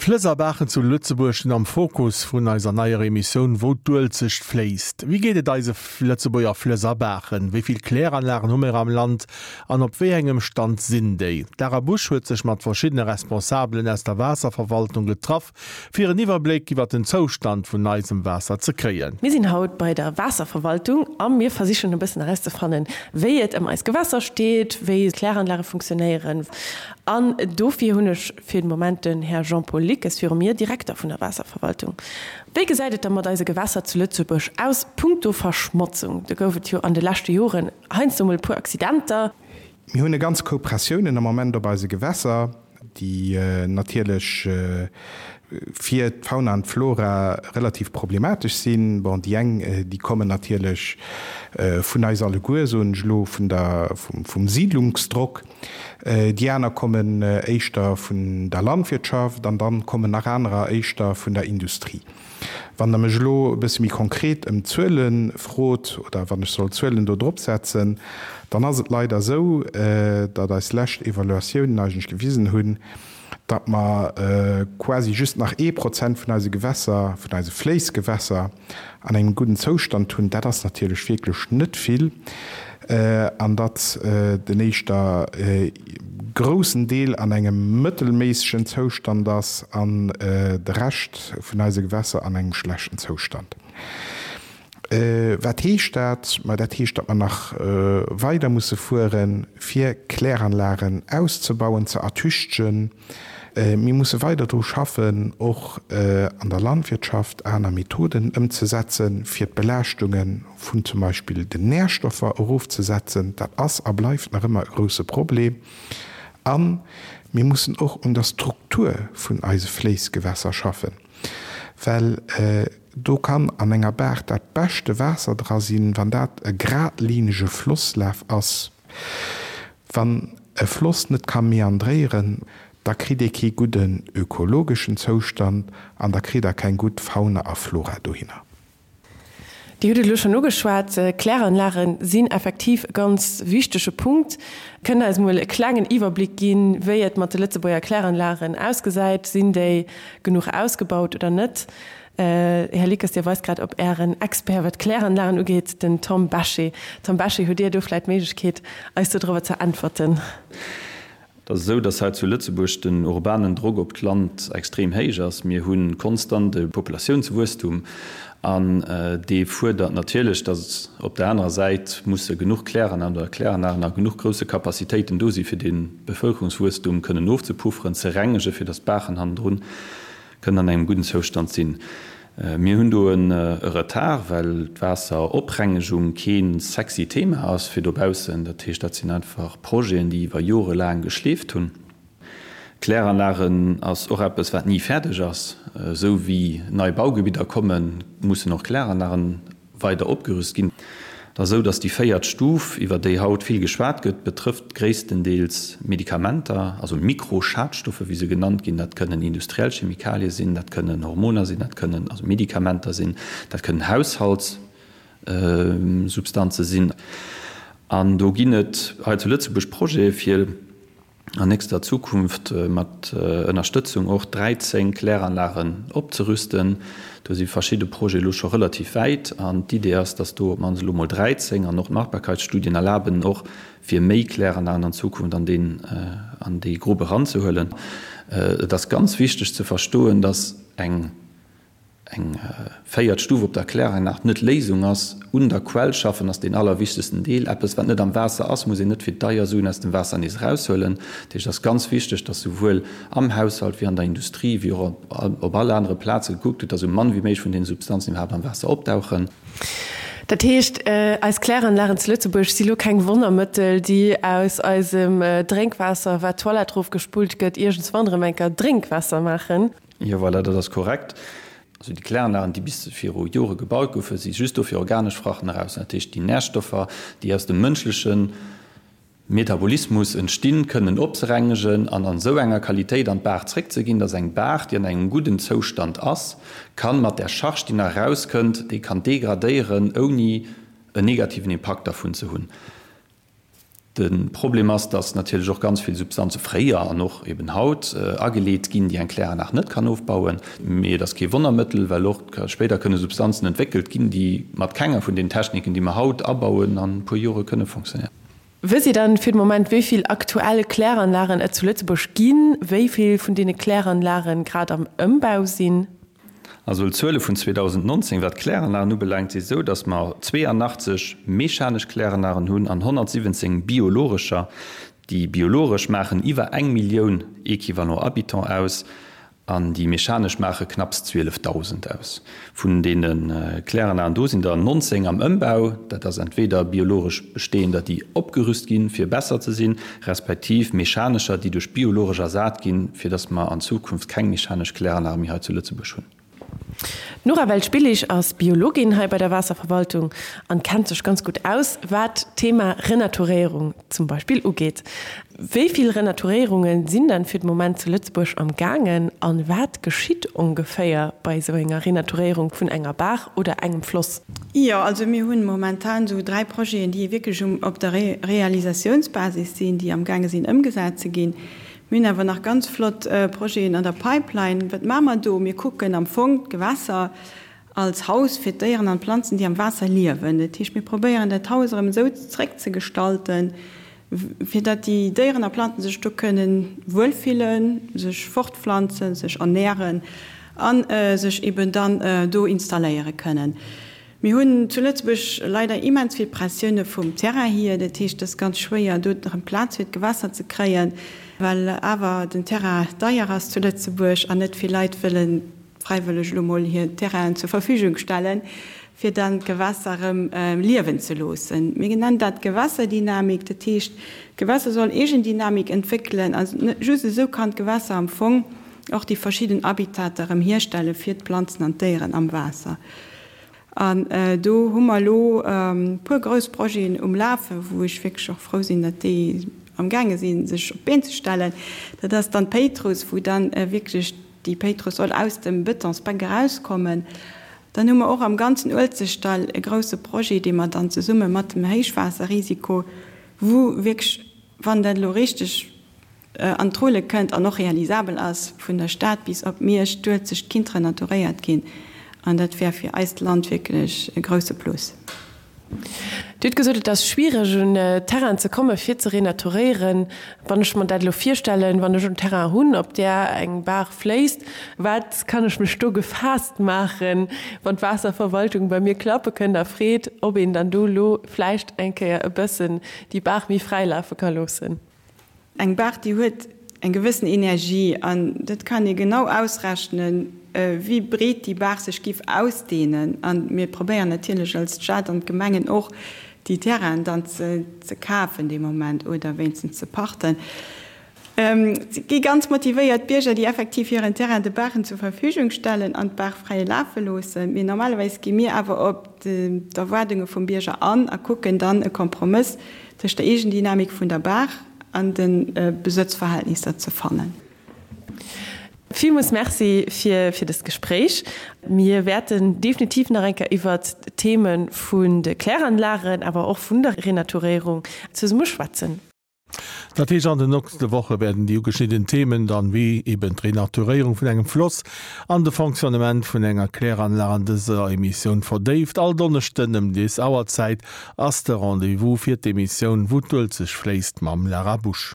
D'Flëss a Baachen zu Lëtzebuerg sinn am Fokus vun eiser neier Emissioun Wou d'Uelzecht fléisst. Wéi geet et eise Lëtzebuerger Flëss a Baachen? Wéi vill Kläranlagen hu mir am Land an op wéi engem Stand sinn déi? D'Lara Busch huet sech mat verschiddene Responsabelen aus der Waasserverwaltung getraff, fir en Iwwerbléck iwwer den Zoustand vun eisem Waasser ze kréien. Mir sinn haut bei der Waasserverwaltung a mir versichen e bëssen erauszefannen, wéi et ëm eis Gewässer steet, wéi d'Kläranlage funktionéieren. An dofir hunn ech fir den Moment den Här Jean-Paul Lickes viru mir, Direkter vun der Waasserverwaltung. Wéi gesäit et da mat eise Gewässer zu Lëtzebuerg aus punkto Verschmotzung? Do gouf et jo an de leschte Joren heiansdo mol e puer Accidenter. Mir hunn e ganz Koup Pressiounen am Moment op eise Gewässer, déi natierlech fir d'Fauna an d'Flora relativ problematesch sinn. Bon, déi eng, déi kommen natierlech vun eis alleguer, soen ech elo, vun der, vum Siedlungsdrock. Déi aner kommen éischter vun der Landwirtschaft an dann kommen nach anerer éischter vun der Industrie. Wann Der mech elo e bësse méi konkret ëm d'Zuele frot oder wann ech soll Zuelen do drop setzen, dann ass et leider esou, datt eis lescht Evaluatiounen eigentlech gewisen hunn, datt mer quasi just nach ee Prozent vun eise Gewässer, vun eise Fléissgewässer an engem gudden Zoustand hunn. Dat ass natierlech wierklech net vill. An datt den éischter groussen Deel an engem mëttelméissegen Zoustand ass an de Rescht vun eise Gewässer an engem schlechten Zoustand. Wat heescht dat? Ma dat heescht, datt mer nach weider musse fueren, fir Kläranlagen auszebauen, ze ertüchtegen. Mir musse weider dru schaffen, och an der Landwirtschaft aner Methoden ëmzesetzen, fir d'Belaaschtunge vun zum Beispill den Närstoffer erofzesetzen. Dat ass a bleift nach ëmmer e grouse Problem. A mir mussen och un der Struktur vun eise Fléissgewässer schaffen, well do kann an enger Baach dat beschte Waasser dra sinn, wann dat e gradlinege Flosslaf ass. Wann e Floss net ka meandréieren, da kritt ee kee gudden ökologeschen Zoustand an da kritt Der keng gutt Fauna a Flora dohinner. Dir hutt et elo schonn ugeschwat, Kläranlage sinn effektiv e ganz wichtege Punkt. Kënnt Der eis emol e klengen Iwwerbléck ginn, wéi et mat de Lëtzebuerger Kläranlagen ausgesäit? Sinn déi genuch ausgebaut oder net? Här Lickes, Dir weist grad op Ären Expert, wat d'Kläranlagen ugeet, den Tom Bechet. Tom Bechet, hutt Dir do vläicht d'Méiglechkeet, eis dodrëwer ze äntwerten? Et ass esou, dass hei zu Lëtzebuerg den urbanen Drock op d'Land extrem héich ass. Mir hu konstant e Populatiounswuesstum an dee fuerdert natierlech, dass op der anerer Säit musse genuch Kläranlagen oder Kläranlagen a genuch grousse Capacitéiten do si fir dee Bevëlkerungswuesstum kënnen ofzepufferen, ze rengegen, fir dass d'Baachen hannendrun kënnen an engem gudden Zoustand sinn. Mir hunn do e Retard, well d'Waasseroprengegung kee sexy Thema ass fir dobaussen. Dat heescht, dat sinn einfach Projeten, déi iwwer Jore laang geschleeft hunn. Kläranlagen ass och eppes, wat ni fäerdeg ass. Esou wéi nei Baugebidder kommen, mussen och Kläranlagen weider opgerüst ginn. Et ass esou, datt déi véiert Stuf, iwwer déi haut vill geschwat gëtt, betrëfft gréisstendeels Medikamenter, also Mikroschadstoffe wéi se genannt ginn. Dat kënnen industriell Chemikalie sinn, dat kënnen Hormoner sinn, dat kënnen also Medikamenter sinn, dat kënnen Haushaltssubstanze sinn. An do ginn et hei zu Lëtzebuerg Projete fir, an nächster Zukunft mat Ënnerstëtzung och 13 Kläranlagen opzerüsten. Do si verschidde Projete elo scho relativ wäit an d'Idee ass, dass do op d'mannst elo mol 13 an och d'Machbarkeitsstudien erlaben och fir méi Kläranlagen an Zukunft an deen an déi Grupp eranzehuelen. Et ass ganz wichteg ze verstoen, dass eng Eng véiert Stuf op der Kläranlag net Léisung ass. Un der Quell schaffen ass deen allerwichtegsten Deel. Eppes wat net am Waasser ass, muss een net fir deier Suen aus dem Waasser nees eraushuelen. Dat heescht, et ass ganz wichteg, dass souwuel am Haushalt wéi an der Industrie wéi och op all anere Plaze gekuckt gëtt, dass esou mann wéi méiglech vun deene Substanzen iwwerhaapt am Waasser opdauchen. Dat heescht, eis Kläranlagen zu Lëtzebuerg si lo keng Wonnermëttel, déi aus eisem Drénkwaasser, wat d'Toilette erofgespullt gëtt, iergendswann erëm eng Kéier Drénkwaasser maachen? Jo, voilà, dat ass korrekt. Also déi Kläranlagen, déi bis viru Jore gebaut goufen, si just do fir organesch Frachten eraus. Dat heescht, déi Närstoffer, déi aus dem mënschleche Metabolismus entstinn, kënnen opzerengegen an an esou enger Qualitéit an d'Baach zréckzeginn, dass eng Baach, déi an engem gudden Zoustand ass, kann mat där Charge, déi nach erauskënnt, déi kann degradéieren, ouni en negativen Impakt dervun ze hunn. De Problem ass, dass natierlech och ganz vill Substanze fréier an och eben haut ageleet ginn, déi eng Kläranlag net kann ofbauen. Mee et ass kee Wonnermëttel, well och spéider kënne Substanzen entwéckelt ginn, déi mat kenger vun den Techniken, déi mer haut abauen, an e puer Jore kënne fonctionnéieren. Wësst Dir dann fir de Moment, wéi vill aktuell Kläranlagen et zu Lëtzebuerg ginn, wéi vill vun deene Kläranlagen grad am Ëmbau sinn? Also d'Zuele vun 2019, wat d'Kläranlagen ubelaangt, si esou, datt mer 82 mechanesch Kläranlagen hunn an 117 biologescher. Déi biologesch maachen iwwer eng Millioun Equivalent Habitant aus an déi mechanesch maache knapps 12.000 aus. Vun deene Kläranlagen do sinn der 19 am Ëmbau. Dat ass entweder biologesch bestehender, déi opgerüst ginn, fir besser ze sinn, respektiv mechanescher, déi duerch biologesch ersat ginn, fir dass mer an Zukunft keng mechanesch Kläranlage méi hei zu Lëtzebuerg hunn. D'Nora Welsch-Billig ass Biologin hei bei der Waasserverwaltung an kennt sech ganz gutt aus, wat d'Thema Renaturéierung zum Beispill ugeet. Wéi vill Renaturéierunge sinn dann fir de Moment zu Lëtzebuerg am gaangen an wat geschitt ongeféier bei esou enger Renaturéierung vun enger Baach oder engem Floss? Jo, also mir hunn momentan esou 3 Projeten, déi wierklech um op der Realisatiounsbasis sinn, déi amgaange sinn ëmgesat ze ginn. Mir hunn awer nach ganz flott Projeten an der Pipeline. Wat maache mer do? Mir kucken am Fong d'Gewässer als Haus fir d'Déieren an d'Planzen, déi am Waasser liewen. Dat heescht, mir probéieren dat Haus erëm esou zréckzegestalten, fir datt déi Déieren a Planzen sech do kënnen wuelfillen, sech fortpflanzen, sech ernären a sech eben dann do installéiere kënnen. Mir hunn zu Lëtzebuerg leider immens vill Pressioune vum Terrain hier, dat heescht, et ass ganz schwéier do erëm Plaz fir d'Gewässer ze kréien, well awer den Terrain deier ass zu Lëtzebuerg an net vill Leit wëllen fräiwëlleg elo mol hir Terrainen zur Verfügung stellen, fir dann d'Gewässer erëm liewen ze loossen. Mir nennen dat Gewässerdynamik. Dat heescht, d'Gewässer soll Eegendynamik entwéckelen a just esou kann d'Gewässer am Fong och déi verschidden Habitater erëm hierstelle fir d'Planzen an d'Déieren am Waasser. An do hu mer elo e puer grouss Projeten um Lafen, wou ech wierklech och frou sinn, datt déi amgaange sinn, sech op d'Been ze stellen. Dat ass dann d'Péitruss, wou dann wierklech Déi Péitruss soll aus dem Betonsbänk erauskommen. Dann hu mer och am ganzen Uelzechtdall e grouse Projet, dee mer dann zesumme mat dem Héichwaasserrisiko, wou wierklech, wann dat elo richteg an d'Rulle kënnt an och realisabel ass, vun der Stad bis op Miersch d'Uelzecht kinnt renaturéiert ginn. An dat wär fir eist Land wierklech e grouse Plus. Dir hutt gesot, et ass schwiereg un Terrainen ze komme fir ze renaturéieren. Wann ech mer dat elo virstellen, wann ech en Terrain hunn, op där eng Baach fléisst, wat kann ech mech do gefaasst maachen, wann d'Waasserverwaltung bei mir klappe kënnt a freet, ob een dann do elo vläicht eng Kéier e bëssen déi Baach méi fräi lafe ka loossen? Eng Baach, déi huet eng gewëssen Energie an dat kann ee genau ausrechnen, wéi breet déi Baach sech giff ausdehnen. A mir probéieren natierlech als Stad an d'Gemengen och, déi Terrainen dann ze kafen dee Moment oder wéinstens ze pachten. Et gi ganz motivéiert Bierger, déi effektiv hiren Terrain de Baachen zur Verfügung stellen an d'Baach fräi lafe loossen. Mee normalerweis gi mir awer op d'Erwaardunge vum Bierger an a kucken dann e Kompromëss tëscht der Eegendynamik vun der Baach an de Besëtzverhältnisser ze fannen. Villmools Merci fir fir dëst Gespréich. Mir wäerten definitiv nach eng Kéier iwwert d'Theme vun de Kläranlagen, awer och vun der Renaturéierung zesumme schwätzen. Dat heescht, an den nochste Woche wäerten déi ugeschnidden Themen dann, wéi eben d'Renaturéierung vun engem Floss an de Fonctionnement vun enger Kläranlag an dëser Emissioun verdéift. All Donneschden ëm des Auerzäit ass de Rendez-vous fir d'Emissioun Wou d'Uelzecht fléisst mam Lara Busch.